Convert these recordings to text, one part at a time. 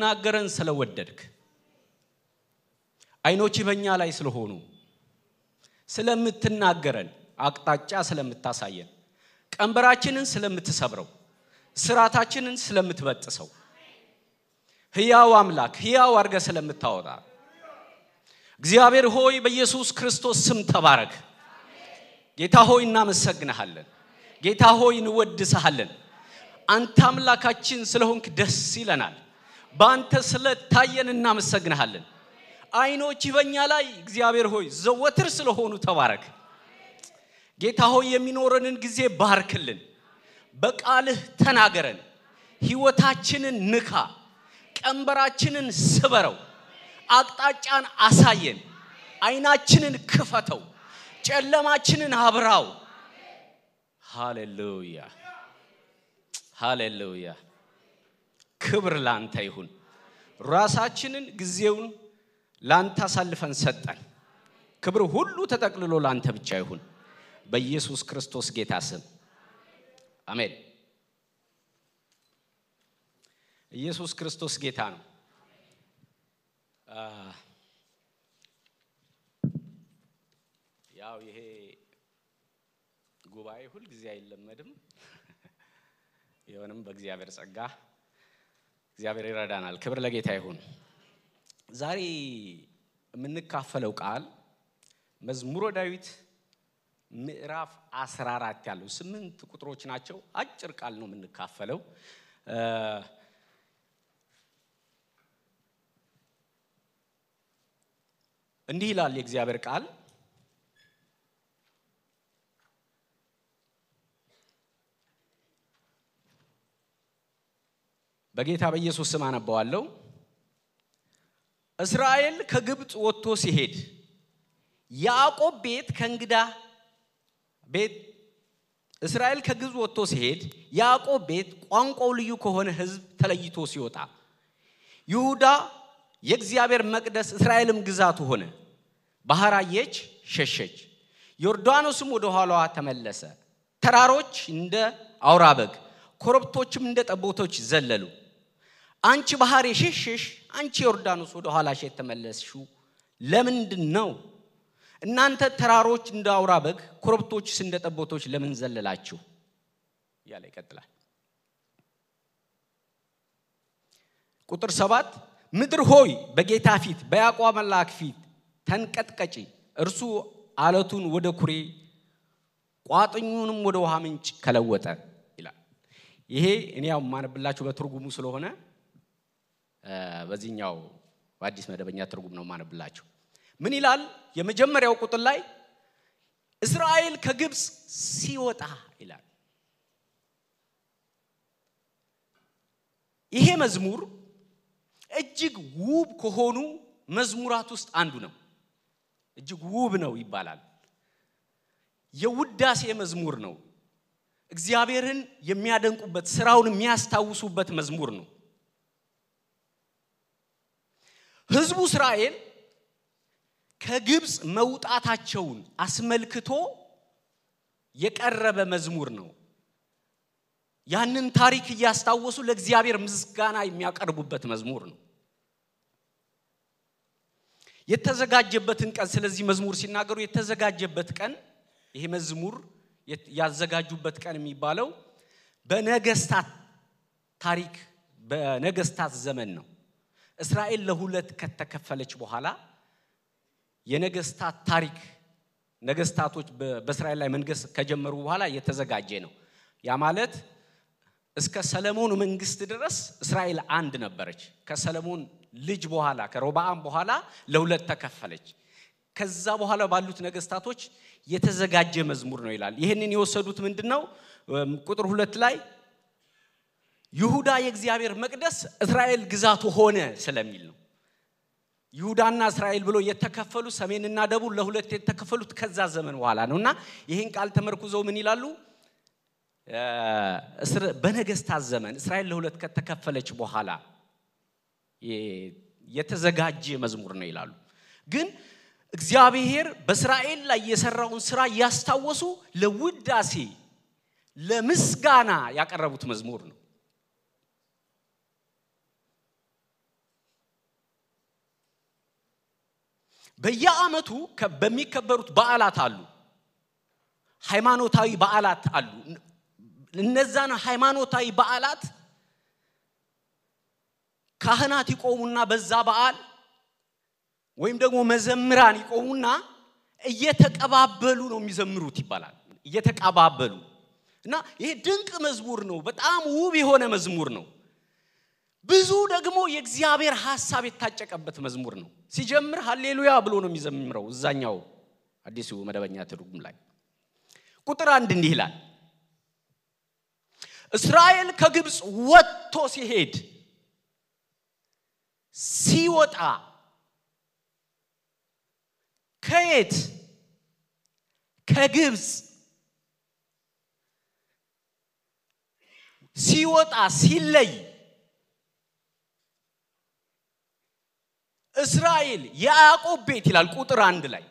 ናገረን ስለወደድክ አይኖች በእኛ ላይ ስለሆኑ ስለምትናገረን አቅጣጫ ስለምታሳየን ቀንበራችንን ስለምትሰብረው ስራታችንን ስለምትበጥሰው ሕያው አምላክ ሕያው አርገ ስለምታወጣ እግዚአብሔር ሆይ በኢየሱስ ክርስቶስ ስም ተባረክ ጌታ ሆይ እናመሰግንሃለን ጌታ ሆይ እንወድስሃለን አንተ አምላካችን ስለሆንክ ደስ ይለናል ባንተ ስለታየን እናመሰግንሃለን አይኖች በእኛ ላይ እግዚአብሔር ሆይ ዘወትር ስለሆኑ ተባረክ ጌታ ሆይ የሚኖረንን ጊዜ ባርክልን በቃልህ ተናገረን ሕይወታችንን ንካ ቀንበራችንን ስበረው አቅጣጫን አሳየን አይናችንን ክፈተው ጨለማችንን አብራው ሃሌሉያ ሃሌሉያ ክብር ላንተ ይሁን ራሳችንን ጊዜውን ላንተ አሳልፈን ሰጠን ክብር ሁሉ ተጠቅልሎ ላንተ ብቻ ይሁን በኢየሱስ ክርስቶስ ጌታ ስም አሜን ኢየሱስ ክርስቶስ ጌታ ነው ያው ይሄ ጉባኤ ሁሉ ጊዜ አይለመድም የሆነም በእግዚአብሔር ጸጋ እግዚአብሔር ይረዳናል ክብር ለጌታ ይሁን ዛሬ የምንካፈለው ቃል መዝሙረ ዳዊት ምዕራፍ 14 ያለው 8 ቁጥሮች ናቸው አጭር ቃል ነው የምንካፈለው እንዲህ ይላል የእግዚአብሔር ቃል በጌታ በኢየሱስ ስም አነባዋለሁ እስራኤል ከግብጽ ወጥቶ ሲሄድ ያዕቆብ ቤት ከእንግዳ ቤት እስራኤል ከግብጽ ወጥቶ ሲሄድ ያዕቆብ ቤት ቋንቋው ልዩ ከሆነ ሕዝብ ተለይቶ ሲወጣ ይሁዳ የእግዚአብሔር መቅደስ እስራኤልም ግዛቱ ሆነ ባህራየች ሸሸች ዮርዳኖስም ወደ ኋላዋ ተመለሰ ተራሮች እንደ አውራበግ ኮረብቶችም እንደ ጠቦቶች ዘለሉ አንቺ ባህር የሸሸሽ አንቺ ዮርዳኖስ ወደ ኋላሽ ተመለስሽው ለምንድነው እናንተ ተራሮች እንደ አውራበግ ኮረብቶችስ እንደ ጠቦቶች ለምን ዘለላችሁ ያለ ይቀጥላል ቁጥር 7 ምድር ሆይ በጌታ ፊት በያዕቆብ አምላክ ፊት ተንቀጥቀጪ እርሱ አለቱን ወደ ኩሬ ቋጥኙንም ወደ ውሃ ምንጭ ከለወጠ ይላል ይሄ እኔ ያው ማነብላችሁ በትርጉሙ ስለሆነ በዚህኛው በአዲስ መደበኛ ትርጉም ነው ማነብላችሁ ምን ይላል የመጀመሪያው ቁጥር ላይ እስራኤል ከግብጽ ሲወጣ ይላል ይሄ መዝሙር እጅግ ውብ ከሆኑ መዝሙራት ውስጥ አንዱ ነው እጅግ ውብ ነው ይባላል የውዳሴ መዝሙር ነው እግዚአብሔርን የሚያደንቁበት ስራውን የሚያስታውሱበት መዝሙር ነው ሕዝቡ እስራኤል ከግብጽ መውጣታቸውን አስመልክቶ የቀረበ መዝሙር ነው ያንን ታሪክ ያስታወሱ ለእግዚአብሔር ምስጋና የሚያቀርቡበት መዝሙር ነው የተዘጋጀበትን ቀን ስለዚህ መዝሙር ሲናገሩ የተዘጋጀበት ቀን ይሄ መዝሙር ያዘጋጁበት ቀን የሚባለው በነገስታት ታሪክ በነገስታት ዘመን ነው እስራኤል ለሁለት ከተከፈለች በኋላ የነገስታት ታሪክ ነገስታቶች በእስራኤል ላይ መንገስ ከጀመሩ በኋላ የተዘጋጀ ነው ያ ማለት እስከ ሰለሞን መንግስት ድረስ እስራኤል አንድ ነበረች ከሰለሞን ልጅ በኋላ ከሮብዓም በኋላ ለሁለት ተከፈለች ከዛ በኋላ ባሉት ነገስታቶች የተዘጋጀ መዝሙር ነው ይላል ይሄንን የወሰዱት ምንድነው ቁጥር 2 ላይ ይሁዳ የእግዚአብሔር መቅደስ እስራኤል ግዛቱ ሆነ ስለሚል ነው ይሁዳና እስራኤል ብሎ የተከፈሉ ሰሜንና ደቡብ ለሁለት የተከፈሉት ከዛ ዘመን በኋላ ነውና ይሄን ቃል ተመርኩዘው ምን ይላሉ በነገስታት ዘመን እስራኤል ለሁለት ከተከፈለች በኋላ የተዘጋጀ መዝሙር ነው ይላሉ ግን እግዚአብሔር በእስራኤል ላይ የሰራውን ስራ ያስታወሱ ለውዳሴ ለምስጋና ያቀረቡት መዝሙር ነው በየዓመቱ በሚከበሩት በዓላት አሉ ሃይማኖታዊ በዓላት አሉ እነዛን ሃይማኖታዊ በዓላት ካህናት ይቆሙና በዛ በዓል ወይም ደግሞ መዘምራን ይቆሙና እየተቀባበሉ ነው የሚዘምሩት ይባላል እየተቀባበሉ እና ይሄ ድንቅ መዝሙር ነው በጣም ውብ የሆነ መዝሙር ነው ብዙ ደግሞ የእግዚአብሔር ሐሳብ የታጨቀበት መዝሙር ነው ሲጀምር ሃሌሉያ ብሎ ነው የሚዘምረው እዛኛው አዲሱ መደበኛ ትርጉም ላይ ቁጥር 1 እንዲህ ይላል እስራኤል ከግብጽ ወጥቶ ሲሄድ ሲወጣ ከየት ከግብጽ ሲወጣ ሲለይ እስራኤል ያዕቆብ ቤት ይላል ቁጥር 1 ላይ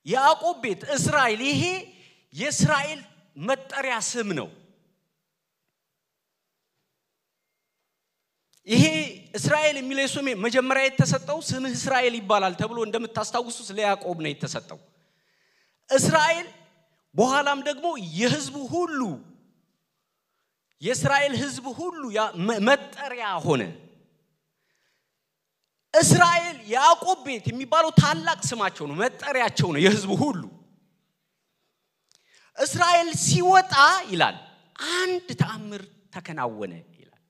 ያዕቆብ ቤት እስራኤል ይሄ የእስራኤል መጠሪያ ስም ነው ይሄ እስራኤል የሚለው ስም መጀመሪያ የተሰጠው ስምህ እስራኤል ይባላል ተብሎ እንደምታስታውሱት ለያዕቆብ ነው የተሰጠው እስራኤል በኋላም ደግሞ የሕዝቡ ሁሉ የእስራኤል ሕዝብ ሁሉ መጠሪያ ሆነ እስራኤል ያዕቆብ ቤት የሚባለው ታላቅ ስማቸው ነው መጠሪያቸው ነው የሕዝቡ ሁሉ እስራኤል ሲወጣ ይላል አንድ ተአምር ተከናወነ ይላል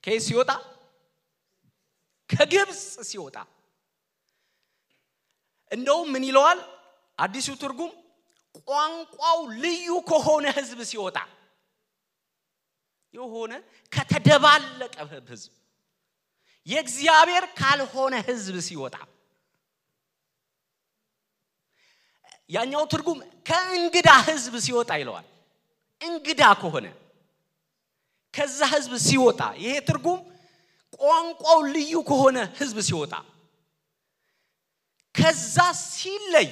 ከየት ሲወጣ ከግብጽ ሲወጣ እንደው ምን ይለዋል አዲሱ ትርጉም ቋንቋው ልዩ ከሆነ ሕዝብ ሲወጣ የሆነ ከተደባለቀ ሕዝብ የእግዚአብሔር ካልሆነ ሕዝብ ሲወጣ ያኛው ትርጉም ከእንግዳ ሕዝብ ሲወጣ ይለዋል እንግዳ ከሆነ ከዛ ሕዝብ ሲወጣ ይሄ ትርጉም ቋንቋው ልዩ ከሆነ ሕዝብ ሲወጣ ከዛ ሲለይ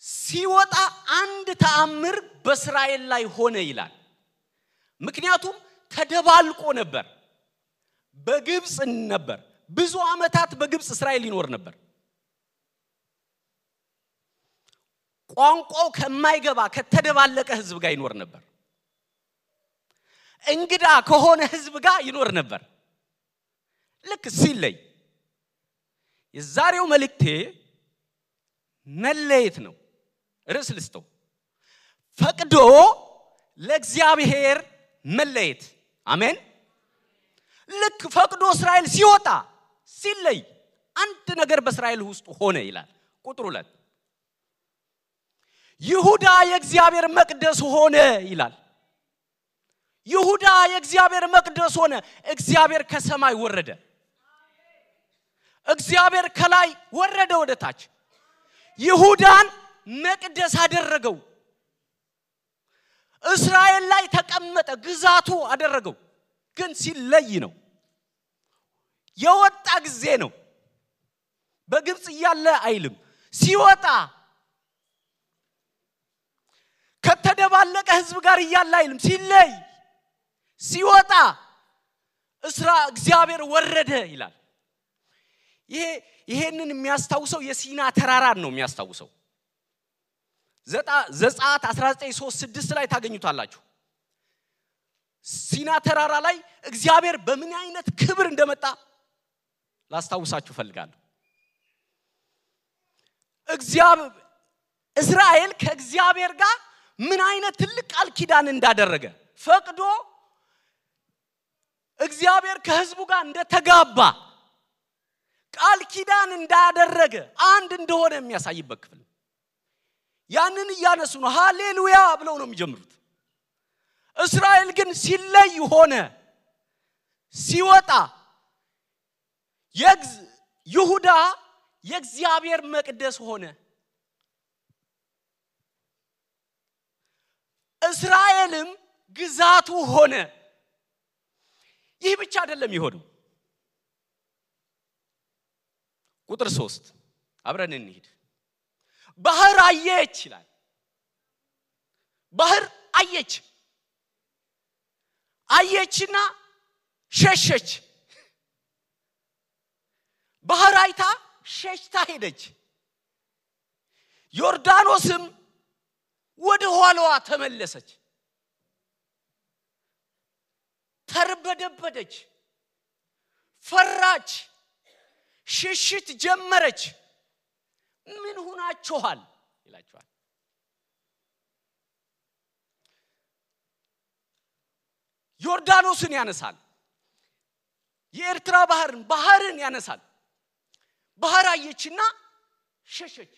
ሲወጣ አንድ ተአምር በእስራኤል ላይ ሆነ ይላል ምክንያቱም ተደባልቆ ነበር በግብጽ ነበር ብዙ አመታት በግብጽ እስራኤል ይኖር ነበር ቋንቋው ከማይገባ ከተደባለቀ ሕዝብ ጋር ይኖር ነበር እንግዳ ከሆነ ሕዝብ ጋር ይኖር ነበር ልክ ሲለይ የዛሬው መልእክቴ መለየት ነው ርዕስ ልስጠው ፈቅዶ ለእግዚአብሔር መለየት አሜን ልክ ፈቅዶ እስራኤል ሲወጣ ሲለይ አንድ ነገር በእስራኤል ውስጥ ሆነ ይላል ቁጥር 2 ይሁዳ የእግዚአብሔር መቅደስ ሆነ ይላል ይሁዳ የእግዚአብሔር መቅደስ ሆነ እግዚአብሔር ከሰማይ ወረደ እግዚአብሔር ከላይ ወረደ ወደ ታች ይሁዳን መቅደስ አደረገው እስራኤል ላይ ተቀመጠ ግዛቱ አደረገው ግን ሲለይ ነው የወጣ ጊዜ ነው በግብጽ ያለ አይልም ሲወጣ ከተደባለቀ ሕዝብ ጋር ያለ አይልም ሲለይ ሲወጣ እግዚአብሔር ወረደ ይላል ይሄንን የሚያስታውሰው የሲና ተራራን ነው የሚያስታውሰው ዘጸአት 19:3-6 ላይ ታገኙታላችሁ ሲና ተራራ ላይ እግዚአብሔር በምን አይነት ክብር እንደመጣ ላስታውሳችሁ ፈልጋለሁ እስራኤል ከእግዚአብሔር ጋር ምን አይነት ትልቅ ቃል ኪዳን እንዳደረገ ፈቅዶ እግዚአብሔር ከሕዝቡ ጋር እንደተጋባ ቃል ኪዳን እንዳደረገ አንድ እንደሆነ የሚያሳይበት ክፍል ያንን ያነሱ ነው ሃሌሉያ ብለው ነው የሚጀምሩት እስራኤል ግን ሲለይ ሆነ ሲወጣ ይሁዳ የእግዚአብሔር መቅደስ ሆነ እስራኤልም ግዛቱ ሆነ ይህ ብቻ አይደለም ይሆነው ቁጥር 3 አብረን እንሂድ ባህር አየች ይላል ባህር አየችና ሸሸች ባህር አይታ ሸሽታ ሄደች ዮርዳኖስም ወደ ኋላዋ ተመለሰች ተርበደበደች ፈራች ሽሽት ጀመረች ምን ሆናችኋል ይላችኋል ዮርዳኖስን ያነሳል የኤርትራ ባህርን ያነሳል ባህር አየችና ሸሸች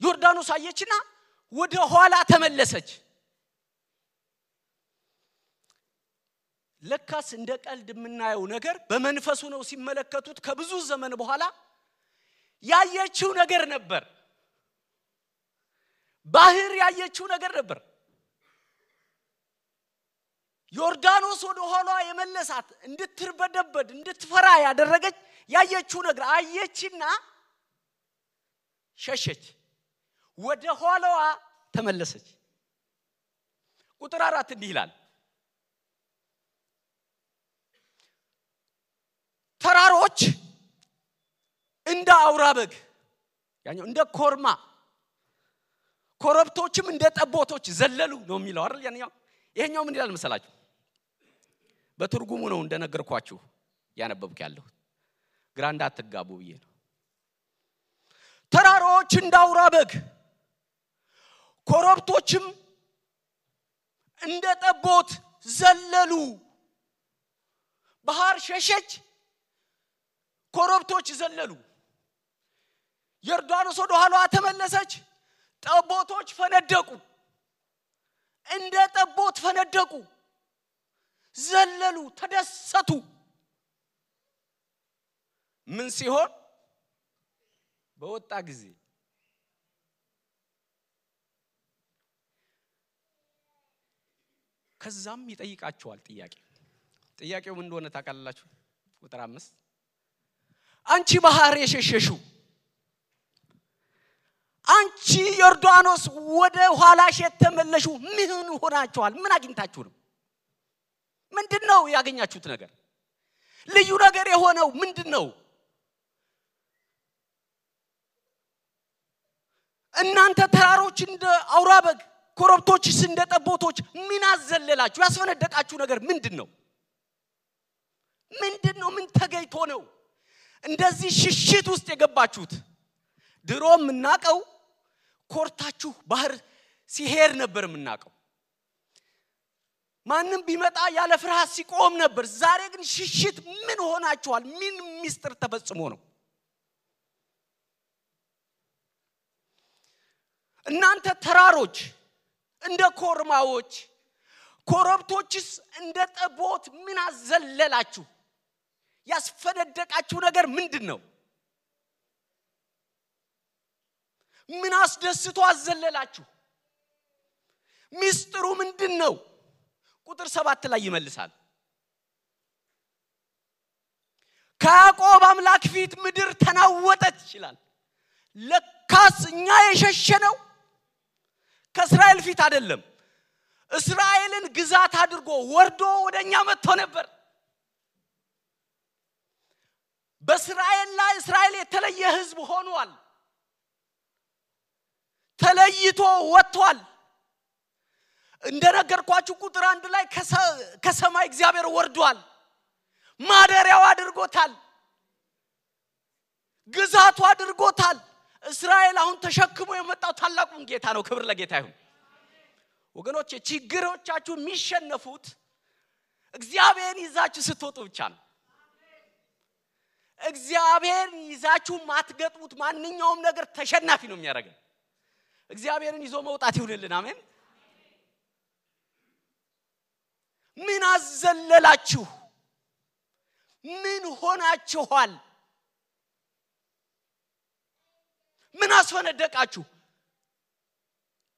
ዮርዳኖስ አየችና ወደ ኋላ ተመለሰች ለካስ እንደ ቀልድ የምናየው ነገር በመንፈሱ ነው ሲመለከቱት ከብዙ ዘመን በኋላ ያየችው ነገር ነበር ባህር ያየችው ነገር ነበር ዮርዳኖስ ወደ ኋላ የመለሳት እንድትርበደበድ እንድትፈራ ያደረገች ያየችው ነገር አየችና ሸሸች ወደ ኋላዋ ተመለሰች ቁጥር 4 እንዲህ ይላል ተራሮች እንደ አውራበግ ያኛው እንደ ኮርማ ኮረብቶችም እንደ ጠቦቶች ዘለሉ ነው የሚለው አይደል ያኛው ይሄኛው ምን ይላል መሰላችሁ በትርጉሙ ነው እንደነገርኳችሁ ያነበብኩ ያለው ግራ እንዳትጋቡ ብዬ ነው ተራሮች እንደ አውራበግ ኮረብቶችም እንደ ጠቦት ዘለሉ ባህር ሸሸች ኮረብቶች ዘለሉ ዮርዳኖስ ወደ ኋላዋ ተመለሰች ጠቦቶች ፈነደቁ እንደ ጠቦት ፈነደቁ ዘለሉ ተደሰቱ ምን ሲሆን በወጣ ጊዜ ከዛም ይጠይቃቸዋል ጥያቄው ምን እንደሆነ ታውቃላችሁ ቁጥር 5 አንቺ ባህር የሸሸሹ አንቺ ዮርዳኖስ ወደ ኋላሽ የተመለሹ ምን ሆናችኋል ምን አግኝታችሁ ነው ምንድነው ያገኛችሁት ነገር ልዩ ነገር የሆነው ምንድነው እናንተ ተራሮች እንደ አውራበግ ኮረብቶችስ እንደ ጠቦቶች ምን አዘለላችሁ ያስፈነደቃችሁ ነገር ምንድነው ምን ተገይቶ ነው እንደዚህ ሽሽት ውስጥ የገባችሁት ድሮም እናቀው ኮርታችሁ ባህር ሲሄድ ነበር እናቀው ማንንም ቢመጣ ያለ ፍርሃት ሲቆም ነበር ዛሬ ግን ሽሽት ምን ሆናችኋል ምን ሚስጥር ተፈጽሞ ነው እናንተ ተራሮች እንደ ኮርማዎች ኮረብቶችስ እንደ ጠቦት ምን አዘለላችሁ ያስፈነደቃችሁ ነገር ምንድነው ምን አስደስቶ አዘለላችሁ ሚስጥሩ ምንድነው ቁጥር 7 ላይ ይመልሳል ከያዕቆብ አምላክ ፊት ምድር ተናወጠች ይላል ለካስ እኛ የሸሸነው ከእስራኤል ፊት አይደለም እስራኤልን ግዛት አድርጎ ወርዶ ወደኛ መጥቶ ነበር በእስራኤል ላይ እስራኤል የተለየ ህዝብ ሆኗል ተለይቶ ወጥቷል እንደነገርኳችሁ ቁጥር 1 ላይ ከሰማይ እግዚአብሔር ወርዷል ማደሪያው አድርጎታል ግዛቱ አድርጎታል እስራኤል አሁን ተሸክሞ የመጣው ታላቁን ጌታ ነው ክብር ለጌታ ይሁን ወገኖቼ ችግሮቻችሁ የሚሸነፉት እግዚአብሔርን ይዛችሁ ስትወጡ ብቻ ነው እግዚአብሔርን ይዛችሁ ማትገጥሙት ማንኛውም ነገር ተሸናፊ ነው የሚያደርገው እግዚአብሔርን ይዞ መውጣት ይሁንልን አሜን ምን አዘለላችሁ ምን ሆናችኋል ምን አስፈነደቃችሁ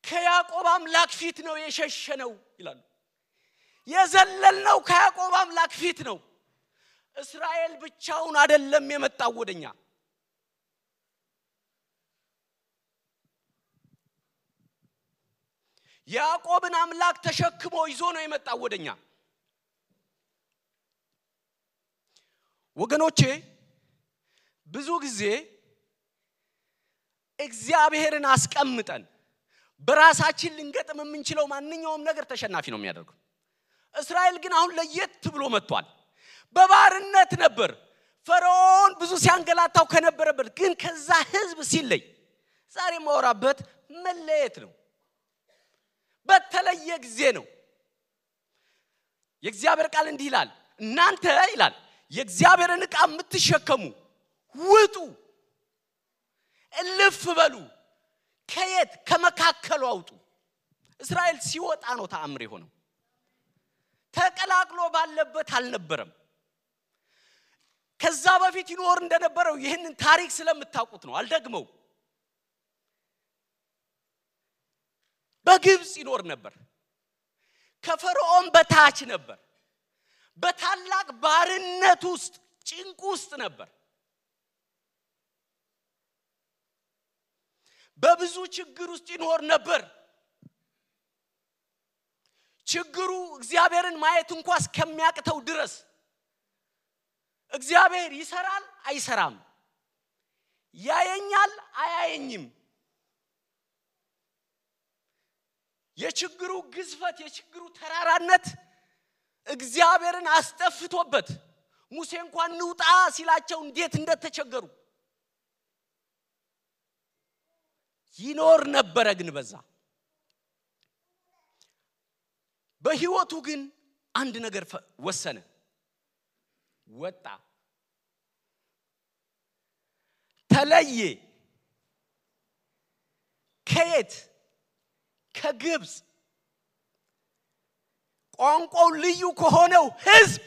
ከያዕቆብ አምላክ ፊት ነው የሸሸነው ይላል የዘለልነው ከያዕቆብ አምላክ ፊት ነው እስራኤል ብቻውን አይደለም የመጣው ወደኛ ያዕቆብን አምላክ ተሸክሞ ይዞ ነው የመጣው ወደኛ ወገኖቼ ብዙ ጊዜ እግዚአብሔርን አስቀምጠን በራሳችን ልንገጥም የምንችለው ማንኛውም ነገር ተሸናፊ ነው የሚያደርገው። እስራኤል ግን አሁን ለየት ብሎ መጥቷል። በባርነት ነበር ፈርዖን ብዙ ሲያንገላታው ከነበረበት ግን ከዛ ህዝብ ሲለይ ዛሬ ማወራበት መለየት ነው። በተለየ ጊዜ ነው። የእግዚአብሔር ቃል እንዲህ ይላል እናንተ ይላል የእግዚአብሔርን ዕቃ የምትሸከሙ ውጡ እልፍ በሉ ከየት ከመካከሉ አውጡ። እስራኤል ሲወጣ ነው ተአምር የሆነው። ተቀላቅሎ ባለበት አልነበረም። ከዛ በፊት ይኖር እንደነበረው ይሄንን ታሪክ ስለምታውቁት ነው አልደግመው። በግብጽ ይኖር ነበር። ከፈርዖን በታች ነበር። በታላቅ ባርነት ውስጥ ጭንቅ ውስጥ ነበር። በብዙ ችግር ውስጥ ይኖር ነበር። ችግሩ እግዚአብሔርን ማየት እንኳን እስከሚያቅተው ድረስ እግዚአብሔር ይሰራል አይሰራም፣ ያየኛል አያየኝም። የችግሩ ግዝፈት የችግሩ ተራራነት እግዚአብሔርን አስጠፍቶበት ሙሴ እንኳን ንውጣ ሲላቸው እንዴት እንደተቸገሩ ይኖር ነበር። ግን በዛ በህይወቱ ግን አንድ ነገር ወሰነ። ወጣ፣ ተለየ። ከየት? ከግብጽ ቋንቋው ልዩ ከሆነው ህዝብ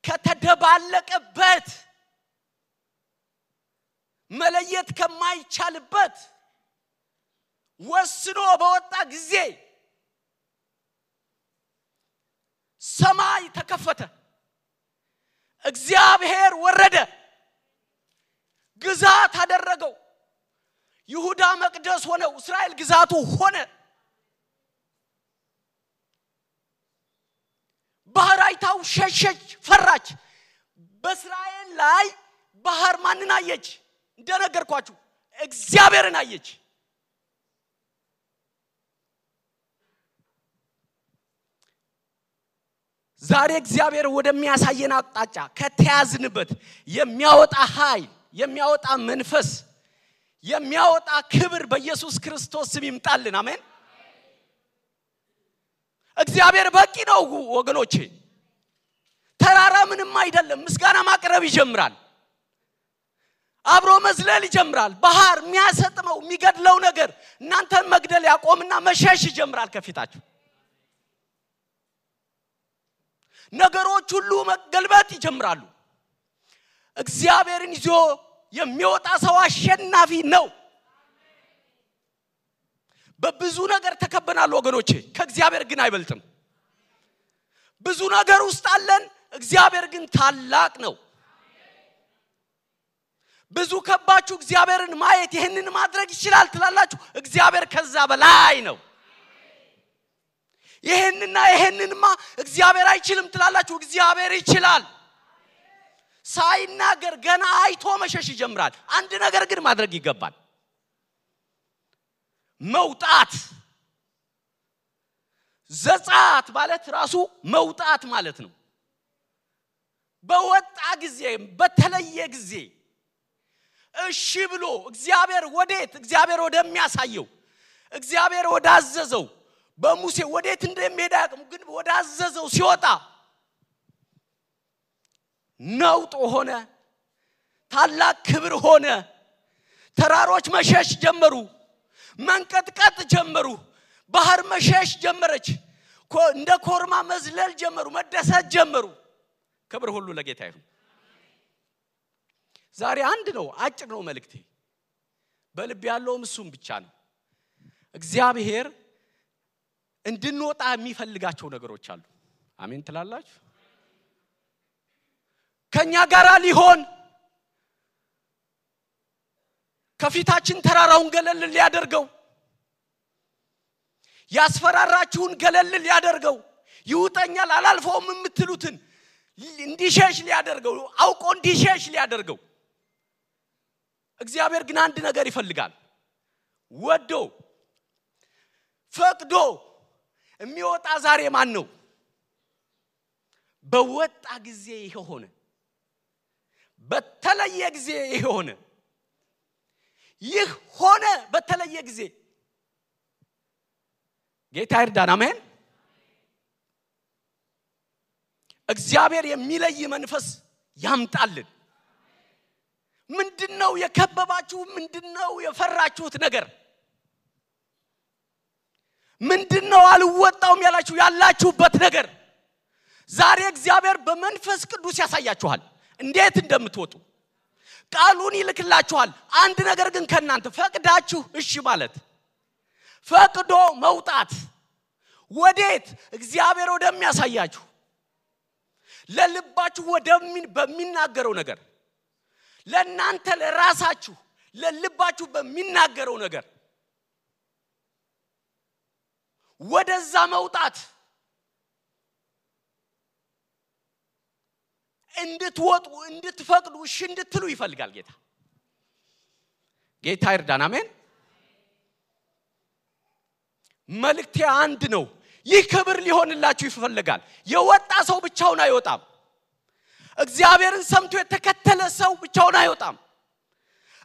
ከተደባለቀበት መለየት ከማይቻልበት ወስኖ በወጣ ጊዜ ሰማይ ተከፈተ። እግዚአብሔር ወረደ፣ ግዛት አደረገው። ይሁዳ መቅደስ ሆነው እስራኤል ግዛቱ ሆነ። ባህር አይታው ሸሸች፣ ፈራች። በእስራኤል ላይ ባህር ማንን አየች? እንደነገርኳችሁ እግዚአብሔርን አየች። ዛሬ እግዚአብሔር ወደሚያሳየን አቅጣጫ ከተያዝንበት የሚያወጣ ኃይል፣ የሚያወጣ መንፈስ፣ የሚያወጣ ክብር በኢየሱስ ክርስቶስ ስም ይምጣልን። አሜን። እግዚአብሔር በቂ ነው ወገኖቼ። ተራራ ምንም አይደለም። ምስጋና ማቅረብ ይጀምራል። አብሮ መዝለል ይጀምራል። ባህር የሚያሰጥመው የሚገድለው ነገር እናንተን መግደል ያቆምና መሸሽ ይጀምራል ከፊታችሁ። ነገሮች ሁሉ መገልበጥ ይጀምራሉ። እግዚአብሔርን ይዞ የሚወጣ ሰው አሸናፊ ነው። በብዙ ነገር ተከበናል ወገኖቼ፣ ከእግዚአብሔር ግን አይበልጥም። ብዙ ነገር ውስጥ አለን፣ እግዚአብሔር ግን ታላቅ ነው። ብዙ ከባችሁ እግዚአብሔርን ማየት ይሄንን ማድረግ ይችላል ትላላችሁ፣ እግዚአብሔር ከዛ በላይ ነው። ይሄንንማ እግዚአብሔር አይችልም ትላላችሁ፣ እግዚአብሔር ይችላል። ሳይናገር ገና አይቶ መሸሽ ይጀምራል። አንድ ነገር ግን ማድረግ ይገባል። መውጣት። ዘጻት ማለት ራሱ መውጣት ማለት ነው። በወጣ ጊዜ፣ በተለየ ጊዜ እሺ ብሎ እግዚአብሔር ወዴት? እግዚአብሔር ወደሚያሳየው፣ እግዚአብሔር ወዳዘዘው፣ በሙሴ ወዴት እንደሚሄድ አያውቅም፣ ግን ወዳዘዘው ሲወጣ ነውጥ ሆነ፣ ታላቅ ክብር ሆነ። ተራሮች መሸሽ ጀመሩ፣ መንቀጥቀጥ ጀመሩ፣ ባህር መሸሽ ጀመረች፣ እንደ ኮርማ መዝለል ጀመሩ፣ መደሰት ጀመሩ። ክብር ሁሉ ለጌታ ይሁን። ዛሬ አንድ ነው፣ አጭር ነው መልእክቴ። በልብ ያለውም እሱም ብቻ ነው። እግዚአብሔር እንድንወጣ የሚፈልጋቸው ነገሮች አሉ። አሜን ትላላችሁ? ከኛ ጋር ሊሆን ከፊታችን ተራራውን ገለል ሊያደርገው፣ ያስፈራራችሁን ገለል ሊያደርገው፣ ይውጠኛል አላልፈውም የምትሉትን እንዲሸሽ ሊያደርገው አውቆ እንዲሸሽ ሊያደርገው እግዚአብሔር ግን አንድ ነገር ይፈልጋል ወዶ ፈቅዶ የሚወጣ ዛሬ ማን ነው በወጣ ጊዜ ይሆነ በተለየ ጊዜ ይሆነ ይህ ሆነ በተለየ ጊዜ ጌታ ይርዳን አሜን እግዚአብሔር የሚለይ መንፈስ ያምጣልን ምንድነው የከበባችሁ ምንድነው የፈራችሁት ነገር ምንድነው አልወጣውም ያላችሁበት ነገር ዛሬ እግዚአብሔር በመንፈስ ቅዱስ ያሳያችኋል እንዴት እንደምትወጡ ቃሉን ይልክላችኋል አንድ ነገር ግን ከናንተ ፈቅዳችሁ እሺ ማለት ፈቅዶ መውጣት ወዴት እግዚአብሔር ወደሚያሳያችሁ ለልባችሁ በሚናገረው ነገር ለናንተ ለራሳችሁ ለልባችሁ በሚናገረው ነገር ወደዛ መውጣት እንድትወጡ እንድትፈቅዱ እሺ እንድትሉ ይፈልጋል ጌታ ይርዳን አሜን መልእክቴ አንድ ነው ይህ ክብር ሊሆንላችሁ ይፈልጋል የወጣ ሰው ብቻውን አይወጣም እግዚአብሔርን ሰምቶ የተከተለ ሰው ብቻውን አይወጣም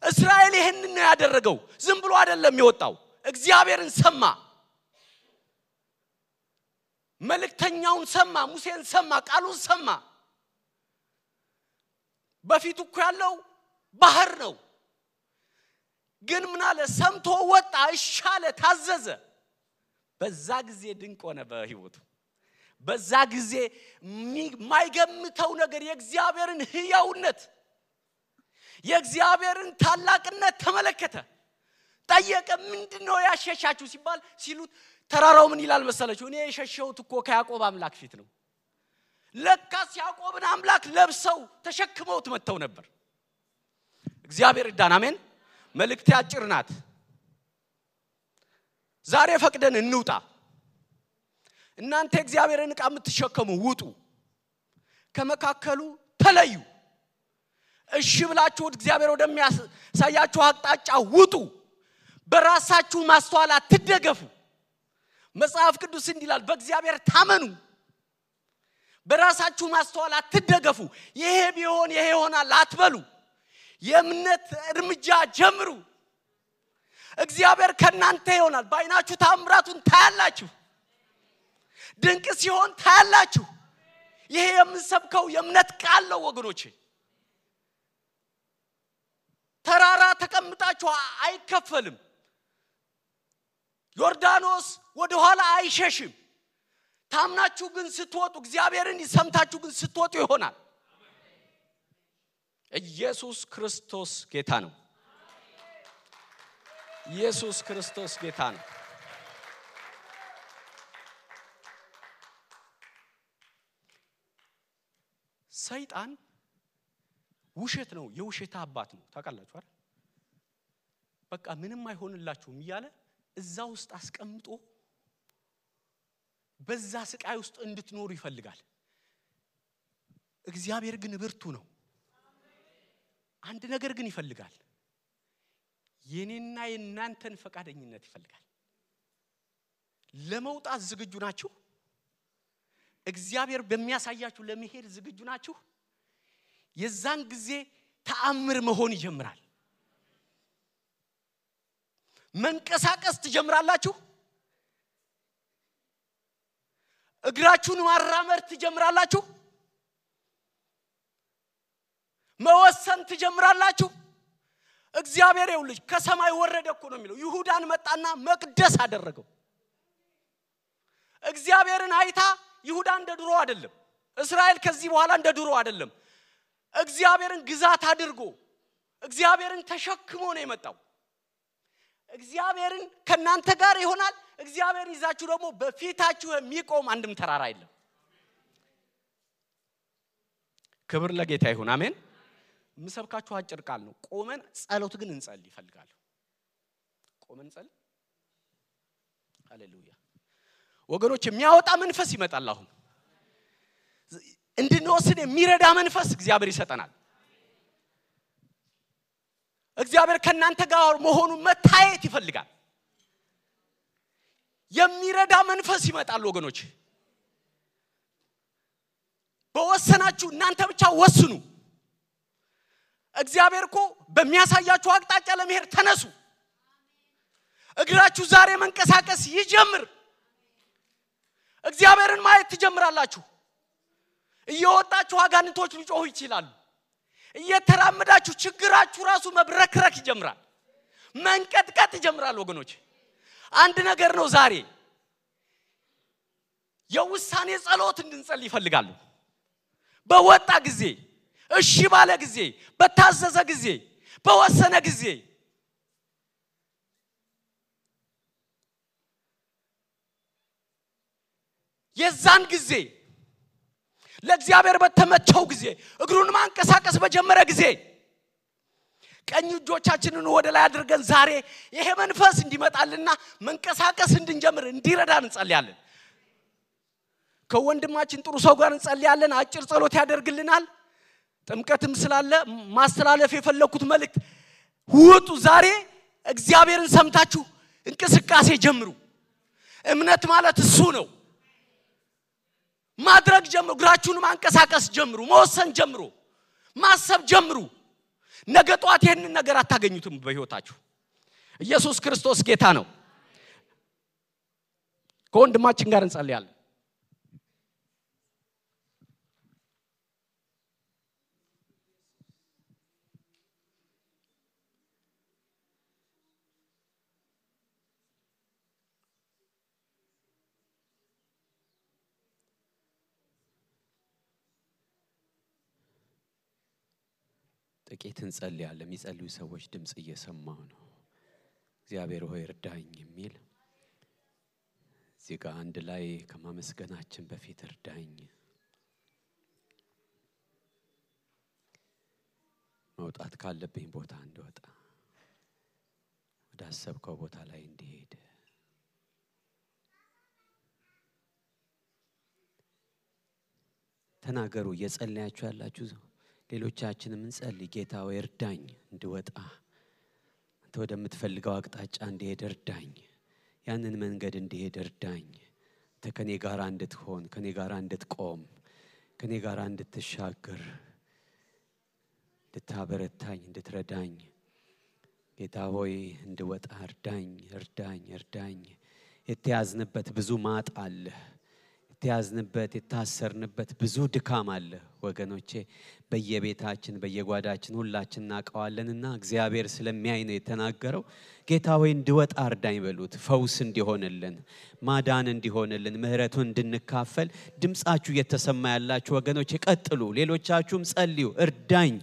እስራኤል ይሄንን ነው ያደረገው ዝም ብሎ አይደለም የወጣው እግዚአብሔርን ሰማ መልእክተኛውን ሰማ ሙሴን ሰማ ቃሉን ሰማ በፊቱ እኮ ያለው ባህር ነው ግን ምን አለ ሰምቶ ወጣ እሻለ ታዘዘ በዛ ጊዜ ድንቅ ሆነ በህይወቱ በዛ ጊዜ ማይገምተው ነገር የእግዚአብሔርን ህያውነት የእግዚአብሔርን ታላቅነት ተመለከተ ጠየቀ ምንድነው ያሸሻችሁ ሲሉት ተራራው ምን ይላል መሰላችሁ እኔ የሸሸሁት እኮ ከያዕቆብ አምላክ ፊት ነው ለካስ ያዕቆብን አምላክ ለብሰው ተሸክመውት መተው ነበር እግዚአብሔር ይርዳን አሜን መልእክቴ አጭር ናት ዛሬ ፈቅደን እንውጣ እናንተ እግዚአብሔርን ዕቃ የምትሸከሙ ውጡ ከመካከሉ ተለዩ እሺ ብላችሁ እግዚአብሔር ወደሚያሳያችሁ አቅጣጫ ውጡ በራሳችሁ ማስተዋል አትደገፉ መጽሐፍ ቅዱስ እንዲላል በእግዚአብሔር ታመኑ በራሳችሁ ማስተዋል አትደገፉ ይሄ ቢሆን ይሄ ይሆናል አትበሉ የእምነት እርምጃ ጀምሩ እግዚአብሔር ከናንተ ይሆናል ባይናችሁ ታምራቱን ታያላችሁ ድንቅ ሲሆን ታያላችሁ ይሄ የምንሰብከው የእምነት ቃል ነው ወገኖቼ ተራራ ተቀምጣችሁ አይከፈልም ዮርዳኖስ ወደ ኋላ አይሸሽም ታምናችሁ ግን ስትወጡ እግዚአብሔርን ሰምታችሁ ግን ስትወጡ ይሆናል ኢየሱስ ክርስቶስ ጌታ ነው ኢየሱስ ክርስቶስ ጌታ ነው ሰይጣን ውሸት ነው የውሸት አባት ነው ታውቃላችሁ አይደል በቃ ምንም አይሆንላችሁም ይያለ እዛ ውስጥ አስቀምጦ በዛ ስቃይ ውስጥ እንድትኖሩ ይፈልጋል እግዚአብሔር ግን ብርቱ ነው አንድ ነገር ግን ይፈልጋል የኔና የናንተን ፈቃደኝነት ይፈልጋል ለመውጣት ዝግጁ ናችሁ እግዚአብሔር በሚያሳያችሁ ለመሄድ ዝግጁ ናችሁ የዛን ጊዜ ተአምር መሆን ይጀምራል መንቀሳቀስ ትጀምራላችሁ እግራችሁን ማራመድ ትጀምራላችሁ መወሰን ትጀምራላችሁ እግዚአብሔር ይውልጅ ከሰማይ ወረደ እኮ ነው የሚለው ይሁዳን መጣና መቅደስ አደረገው እግዚአብሔርን አይታ ይሁዳ እንደ ድሮ አይደለም እስራኤል ከዚህ በኋላ እንደ ድሮ አይደለም እግዚአብሔርን ግዛት አድርጎ እግዚአብሔርን ተሸክሞ ነው የመጣው እግዚአብሔርን ከናንተ ጋር ይሆናል እግዚአብሔር ይዛችሁ ደግሞ በፊታችሁ የሚቆም አንድም ተራራ የለም ክብር ለጌታ ይሁን አሜን ምሰብካችሁ አጭር ቃል ነው ቆመን ጸሎት ግን እንጸልይ ይፈልጋል ቆመን ጸልይ ሃሌሉያ ወገኖች የሚያወጣ መንፈስ ይመጣል አሁን እንድንወስን የሚረዳ መንፈስ እግዚአብሔር ይሰጠናል። እግዚአብሔር ከናንተ ጋር መሆኑን መታየት ይፈልጋል። የሚረዳ መንፈስ ይመጣል ወገኖች። በወሰናችሁ እናንተ ብቻ ወስኑ። እግዚአብሔር እኮ በሚያሳያችሁ አቅጣጫ ለመሄድ ተነሱ። እግራችሁ ዛሬ መንቀሳቀስ ይጀምር። እግዚአብሔርን ማየት ትጀምራላችሁ። እየወጣችሁ አጋንንቶች ሊጮሁ ይችላሉ። እየተራመዳችሁ ችግራችሁ ራሱ መብረክረክ ይጀምራል። መንቀጥቀጥ ይጀምራል ወገኖች። አንድ ነገር ነው ዛሬ የውሳኔ ጸሎት እንድንጸልይ ይፈልጋሉ። በወጣ ጊዜ፣ እሺ ባለ ጊዜ፣ በታዘዘ ጊዜ፣ በወሰነ ጊዜ የዛን ጊዜ ለእግዚአብሔር በተመቸው ጊዜ እግሩን ማንቀሳቀስ በጀመረ ጊዜ ቀኝ እጆቻችንን ወደ ላይ አድርገን ዛሬ ይሄ መንፈስ እንዲመጣልና መንቀሳቀስ እንድንጀምር እንዲረዳን እንጸልያለን። ከወንድማችን ጥሩ ሰው ጋር እንጸልያለን። አጭር ጸሎት ያደርግልናል። ጥምቀትም ስላለ ማስተላለፍ የፈለኩት መልእክት ውጡ። ዛሬ እግዚአብሔርን ሰምታችሁ እንቅስቃሴ ጀምሩ። እምነት ማለት እሱ ነው። ማድረግ ጀምሩ። እግራችሁን ማንቀሳቀስ ጀምሩ። መወሰን ጀምሩ። ማሰብ ጀምሩ። ነገ ጧት ይሄንን ነገር አታገኙትም በህይወታችሁ። ኢየሱስ ክርስቶስ ጌታ ነው። ከወንድማችን ጋር እንጸልያለን። ጥቂት እንጸልያለን። የሚጸልዩ ሰዎች ድምጽ እየሰማሁ ነው። እግዚአብሔር ሆይ እርዳኝ የሚል እዚህ ጋር አንድ ላይ ከማመስገናችን በፊት እርዳኝ፣ መውጣት ካለብኝ ቦታ እንድወጣ፣ ወደ አሰብከው ቦታ ላይ እንድሄድ ተናገሩ። እየጸለያችሁ ያላችሁ ሌሎቻችንም እንጸልይ። ጌታ ሆይ እርዳኝ እንድወጣ፣ አንተ ወደምትፈልገው አቅጣጫ እንድሄድ እርዳኝ፣ ያንን መንገድ እንድሄድ እርዳኝ። አንተ ከኔ ጋር እንድትሆን፣ ከኔ ጋር እንድትቆም፣ ከኔ ጋር እንድትሻገር፣ እንድታበረታኝ፣ እንድትረዳኝ ጌታ ሆይ እንድወጣ እርዳኝ፣ እርዳኝ፣ እርዳኝ። የተያዝንበት ብዙ ማጥ አለ። የተያዝንበት የታሰርንበት ብዙ ድካም አለ ወገኖቼ። በየቤታችን በየጓዳችን ሁላችን እናቀዋለንና እግዚአብሔር ስለሚያይ ነው የተናገረው። ጌታ ሆይ እንድወጣ እርዳኝ በሉት። ፈውስ እንዲሆንልን፣ ማዳን እንዲሆንልን፣ ምህረቱን እንድንካፈል ድምጻችሁ እየተሰማ ያላችሁ ወገኖቼ ቀጥሉ። ሌሎቻችሁም ጸልዩ። እርዳኝ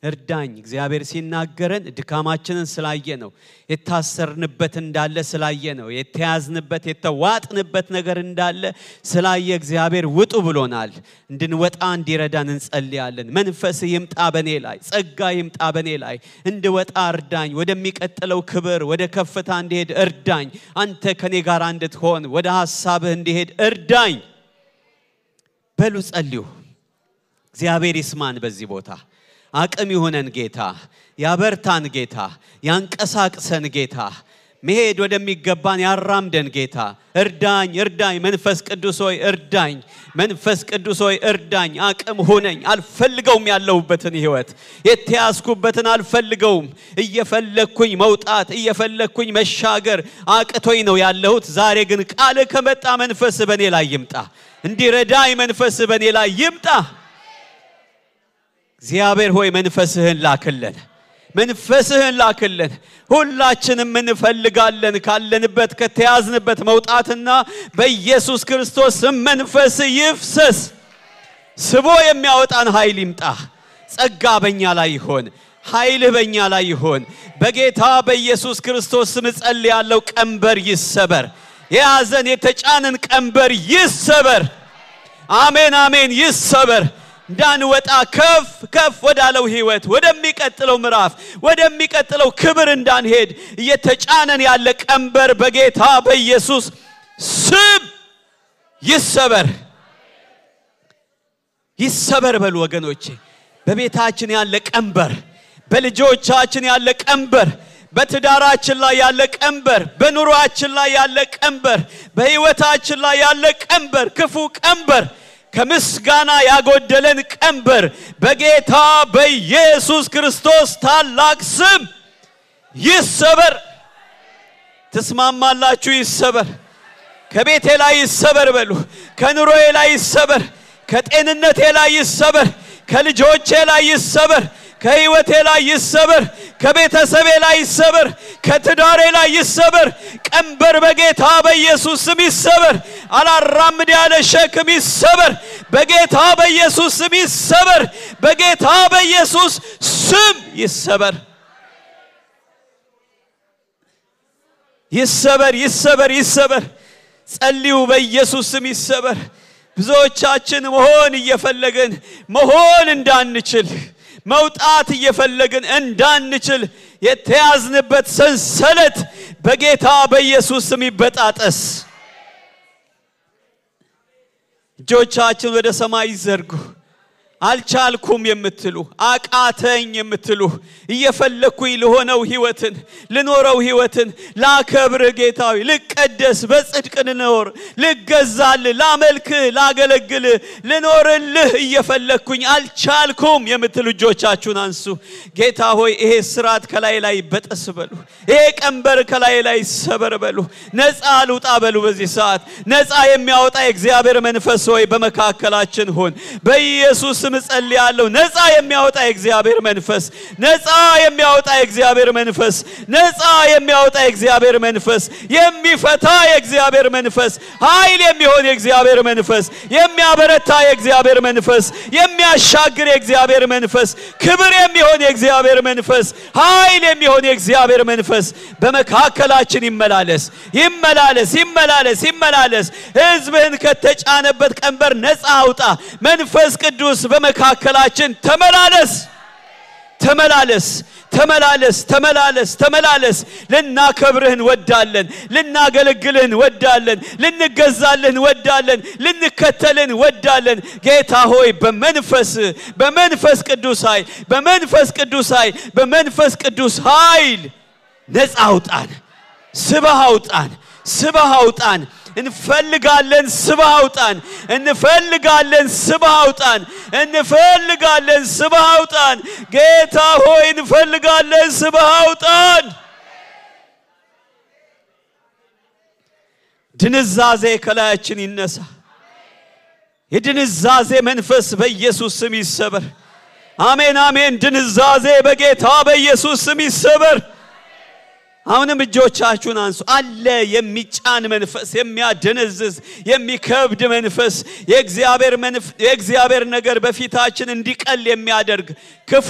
እርዳኝ። እግዚአብሔር ሲናገረን ድካማችንን ስላየ ነው። የታሰርንበት እንዳለ ስላየ ነው። የተያዝንበት የተዋጥንበት ነገር እንዳለ ስላየ እግዚአብሔር ውጡ ብሎናል። እንድንወጣ እንዲረዳን እንጸልያለን። መንፈስ ይምጣ በኔ ላይ፣ ጸጋ ይምጣ በኔ ላይ። እንድወጣ እርዳኝ። ወደሚቀጥለው ክብር ወደ ከፍታ እንድሄድ እርዳኝ። አንተ ከኔ ጋር እንድትሆን ወደ ሐሳብህ እንድሄድ እርዳኝ በሉ ጸልዩ። እግዚአብሔር ይስማን በዚህ ቦታ። አቅም ይሆነን ጌታ፣ ያበርታን ጌታ፣ ያንቀሳቅሰን ጌታ፣ መሄድ ወደሚገባን ያራምደን ጌታ። እርዳኝ እርዳኝ። መንፈስ ቅዱስ ሆይ እርዳኝ። መንፈስ ቅዱስ ሆይ እርዳኝ። አቅም ሆነኝ። አልፈልገውም ያለሁበትን ህይወት፣ የተያዝኩበትን አልፈልገውም። እየፈለኩኝ መውጣት፣ እየፈለኩኝ መሻገር አቅቶኝ ነው ያለሁት። ዛሬ ግን ቃል ከመጣ መንፈስ በኔ ላይ ይምጣ። እንዲረዳኝ መንፈስ በኔ ላይ ይምጣ። እግዚአብሔር ሆይ መንፈስህን ላክልን፣ መንፈስህን ላክልን። ሁላችንም እንፈልጋለን ካለንበት ከተያዝንበት መውጣትና በኢየሱስ ክርስቶስ መንፈስ ይፍሰስ። ስቦ የሚያወጣን ኃይል ይምጣ። ጸጋ በእኛ ላይ ይሆን፣ ኃይል በእኛ ላይ ይሆን። በጌታ በኢየሱስ ክርስቶስ ስም ጸልያለሁ። ቀንበር ይሰበር። የያዘን የተጫነን ቀንበር ይሰበር። አሜን አሜን። ይሰበር። እንዳንወጣ ከፍ ከፍ ወዳለው ህይወት፣ ወደሚቀጥለው ምዕራፍ፣ ወደሚቀጥለው ክብር እንዳንሄድ እየተጫነን ያለ ቀንበር በጌታ በኢየሱስ ስም ይሰበር። ይሰበር በሉ ወገኖቼ በቤታችን ያለ ቀንበር በልጆቻችን ያለ ቀንበር በትዳራችን ላይ ያለ ቀንበር በኑሮአችን ላይ ያለ ቀንበር በህይወታችን ላይ ያለ ቀንበር ክፉ ቀንበር ከምስጋና ያጎደለን ቀንበር በጌታ በኢየሱስ ክርስቶስ ታላቅ ስም ይሰበር ተስማማላችሁ ይሰበር ከቤቴ ላይ ይሰበር በሉ ከኑሮዬ ላይ ይሰበር ከጤንነቴ ላይ ይሰበር ከልጆቼ ላይ ይሰበር ከህይወቴ ላይ ይሰበር ከቤተሰቤ ላይ ይሰበር ከትዳሬ ላይ ይሰበር ቀንበር በጌታ በኢየሱስ ስም ይሰበር አላራምድ ያለ ሸክም ይሰበር በጌታ በኢየሱስ ስም ይሰበር በጌታ በኢየሱስ ስም ይሰበር ይሰበር ይሰበር ይሰበር ጸልዩ በኢየሱስ ስም ይሰበር ብዙዎቻችን መሆን እየፈለግን መሆን እንዳንችል መውጣት እየፈለግን እንዳንችል የተያዝንበት ሰንሰለት በጌታ በኢየሱስ ስም ይበጣጠስ እጆቻችን ወደ ሰማይ ይዘርጉ አልቻልኩም የምትሉ አቃተኝ የምትሉ እየፈለኩኝ ለሆነው ህይወትን ለኖረው ህይወትን ላከብር ጌታዊ ልቀደስ በጽድቅ ልኖር ልገዛል ላመልክ ላገለግል ልኖርልህ እየፈለኩኝ አልቻልኩም የምትሉ እጆቻችሁን አንሱ ጌታ ሆይ ይሄ ስራት ከላይ ላይ በጠስ በሉ ይሄ ቀንበር ከላይ ላይ ሰበር በሉ ነፃ ልውጣ በሉ በዚህ ሰዓት ነፃ የሚያወጣ የእግዚአብሔር መንፈስ ሆይ በመካከላችን ሆን በኢየሱስ ስም ጸልያለሁ ነፃ የሚያወጣ የእግዚአብሔር መንፈስ ነፃ የሚያወጣ የእግዚአብሔር መንፈስ ነፃ የሚያወጣ የእግዚአብሔር መንፈስ የሚፈታ የእግዚአብሔር መንፈስ ኃይል የሚሆን የእግዚአብሔር መንፈስ የሚያበረታ የእግዚአብሔር መንፈስ የሚያሻግር የእግዚአብሔር መንፈስ ክብር የሚሆን የእግዚአብሔር መንፈስ ኃይል የሚሆን የእግዚአብሔር መንፈስ በመካከላችን ይመላለስ ይመላለስ ይመላለስ ይመላለስ ሕዝብህን ከተጫነበት ቀንበር ነፃ አውጣ መንፈስ ቅዱስ በመካከላችን ተመላለስ ተመላለስ ተመላለስ ተመላለስ ተመላለስ ልናከብርህ እንወዳለን ልናገለግልህ እንወዳለን ልንገዛልህ እንወዳለን ልንከተልህ እንወዳለን ጌታ ሆይ በመንፈስ ቅዱስ ኃይል በመንፈስ ቅዱስ ኃይል በመንፈስ ቅዱስ ኃይል ነፃ አውጣን ስበህ አውጣን ስበህ አውጣን እንፈልጋለን ስበህ አውጣን እንፈልጋለን ስበህ አውጣን እንፈልጋለን ስበህ አውጣን ጌታ ሆይ እንፈልጋለን ስበህ አውጣን ድንዛዜ ከላያችን ይነሳ የድንዛዜ መንፈስ በኢየሱስ ስም ይሰበር አሜን አሜን ድንዛዜ በጌታ በኢየሱስ ስም ይሰበር አሁንም እጆቻችሁን አንሱ አለ የሚጫን መንፈስ የሚያደነዝዝ የሚከብድ መንፈስ የእግዚአብሔር ነገር በፊታችን እንዲቀል የሚያደርግ ክፉ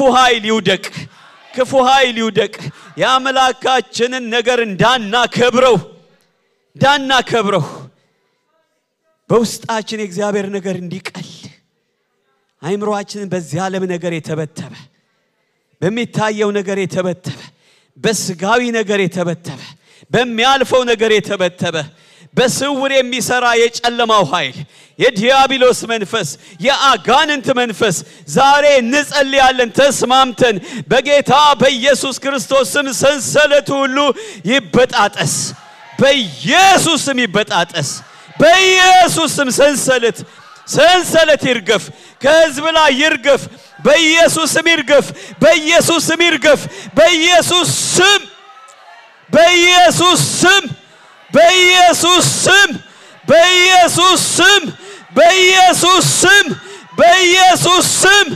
ኃይል ይውደቅ ያመላካችንን ነገር እንዳናከብረው በውስጣችን የእግዚአብሔር ነገር እንዲቀል አይምሮአችንን በዚህ ዓለም ነገር የተበተበ በሚታየው ነገር የተበተበ በስጋዊ ነገር የተበተበ በሚያልፈው ነገር የተበተበ በስውር የሚሰራ የጨለማው ኃይል የዲያብሎስ መንፈስ የአጋንንት መንፈስ ዛሬ እንጸልያለን ተስማምተን በጌታ በኢየሱስ ክርስቶስ ስም ሰንሰለቱ ሁሉ ይበጣጠስ በኢየሱስ ስም ይበጣጠስ በኢየሱስ ስም ሰንሰለት ይርገፍ ከሕዝብ ላይ ይርገፍ በኢየሱስ ስም ይርገፍ በኢየሱስ ስም ይርገፍ በኢየሱስ ስም በኢየሱስ ስም በኢየሱስ ስም በኢየሱስ ስም በኢየሱስ ስም በኢየሱስ ስም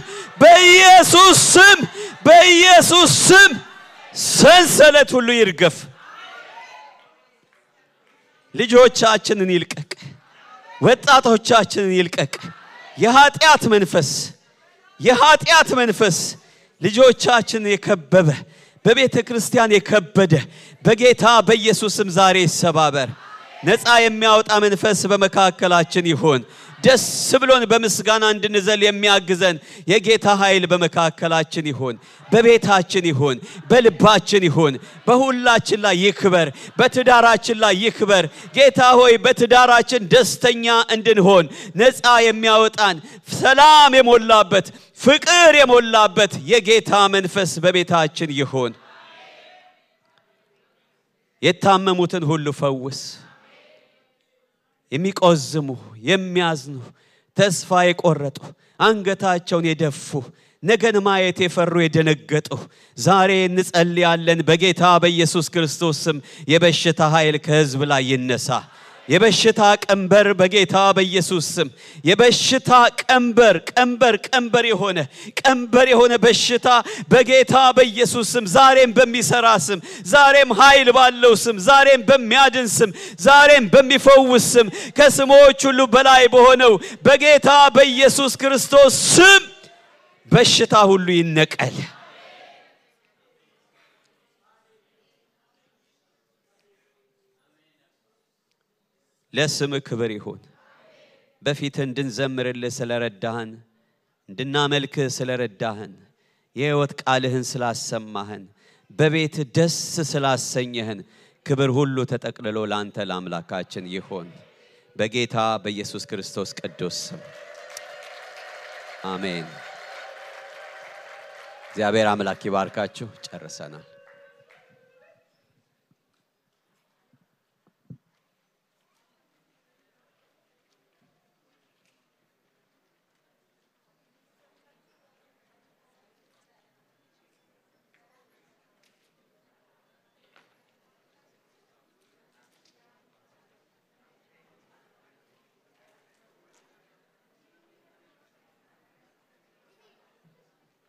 በኢየሱስ ስም በኢየሱስ ስም ሰንሰለት ሁሉ ይርገፍ ልጆቻችንን ይልቀቅ ወጣቶቻችንን ይልቀቅ የኃጢአት መንፈስ ልጆቻችን የከበበ በቤተ ክርስቲያን የከበደ በጌታ በኢየሱስ ስም ዛሬ ይሰባበር ነፃ የሚያወጣ መንፈስ በመካከላችን ይሁን ደስ ብሎን በምስጋና እንድንዘል የሚያግዘን የጌታ ኃይል በመካከላችን ይሁን በቤታችን ይሁን በልባችን ይሁን በሁላችን ላይ ይክበር በትዳራችን ላይ ይክበር ጌታ ሆይ በትዳራችን ደስተኛ እንድንሆን ነፃ የሚያወጣን ሰላም የሞላበት ፍቅር የሞላበት የጌታ መንፈስ በቤታችን ይሁን የታመሙትን ሁሉ ፈውስ የሚቆዝሙ የሚያዝኑ ተስፋ የቆረጡ አንገታቸውን የደፉ ነገን ማየት የፈሩ የደነገጡ ዛሬ እንጸልያለን በጌታ በኢየሱስ ክርስቶስ ስም የበሽታ ኃይል ከሕዝብ ላይ ይነሳ የበሽታ ቀንበር በጌታ በኢየሱስ ስም የበሽታ ቀንበር የሆነ በሽታ በጌታ በኢየሱስ ስም ዛሬም በሚሰራ ስም ዛሬም ኃይል ባለው ስም ዛሬም በሚያድን ስም ዛሬም በሚፈውስ ስም ከስሞች ሁሉ በላይ በሆነው በጌታ በኢየሱስ ክርስቶስ ስም በሽታ ሁሉ ይነቀል ለስም ክብር ይሁን በፊት እንድንዘምርልህ ስለረዳህን እንድናመልክ ስለረዳህን የሕይወት ቃልህን ስላሰማህን በቤት ደስ ስላሰኘህን ክብር ሁሉ ተጠቅልሎ ላንተ ለአምላካችን ይሁን በጌታ በኢየሱስ ክርስቶስ ቅዱስ ስም አሜን እግዚአብሔር አምላክ ይባርካችሁ ጨርሰናል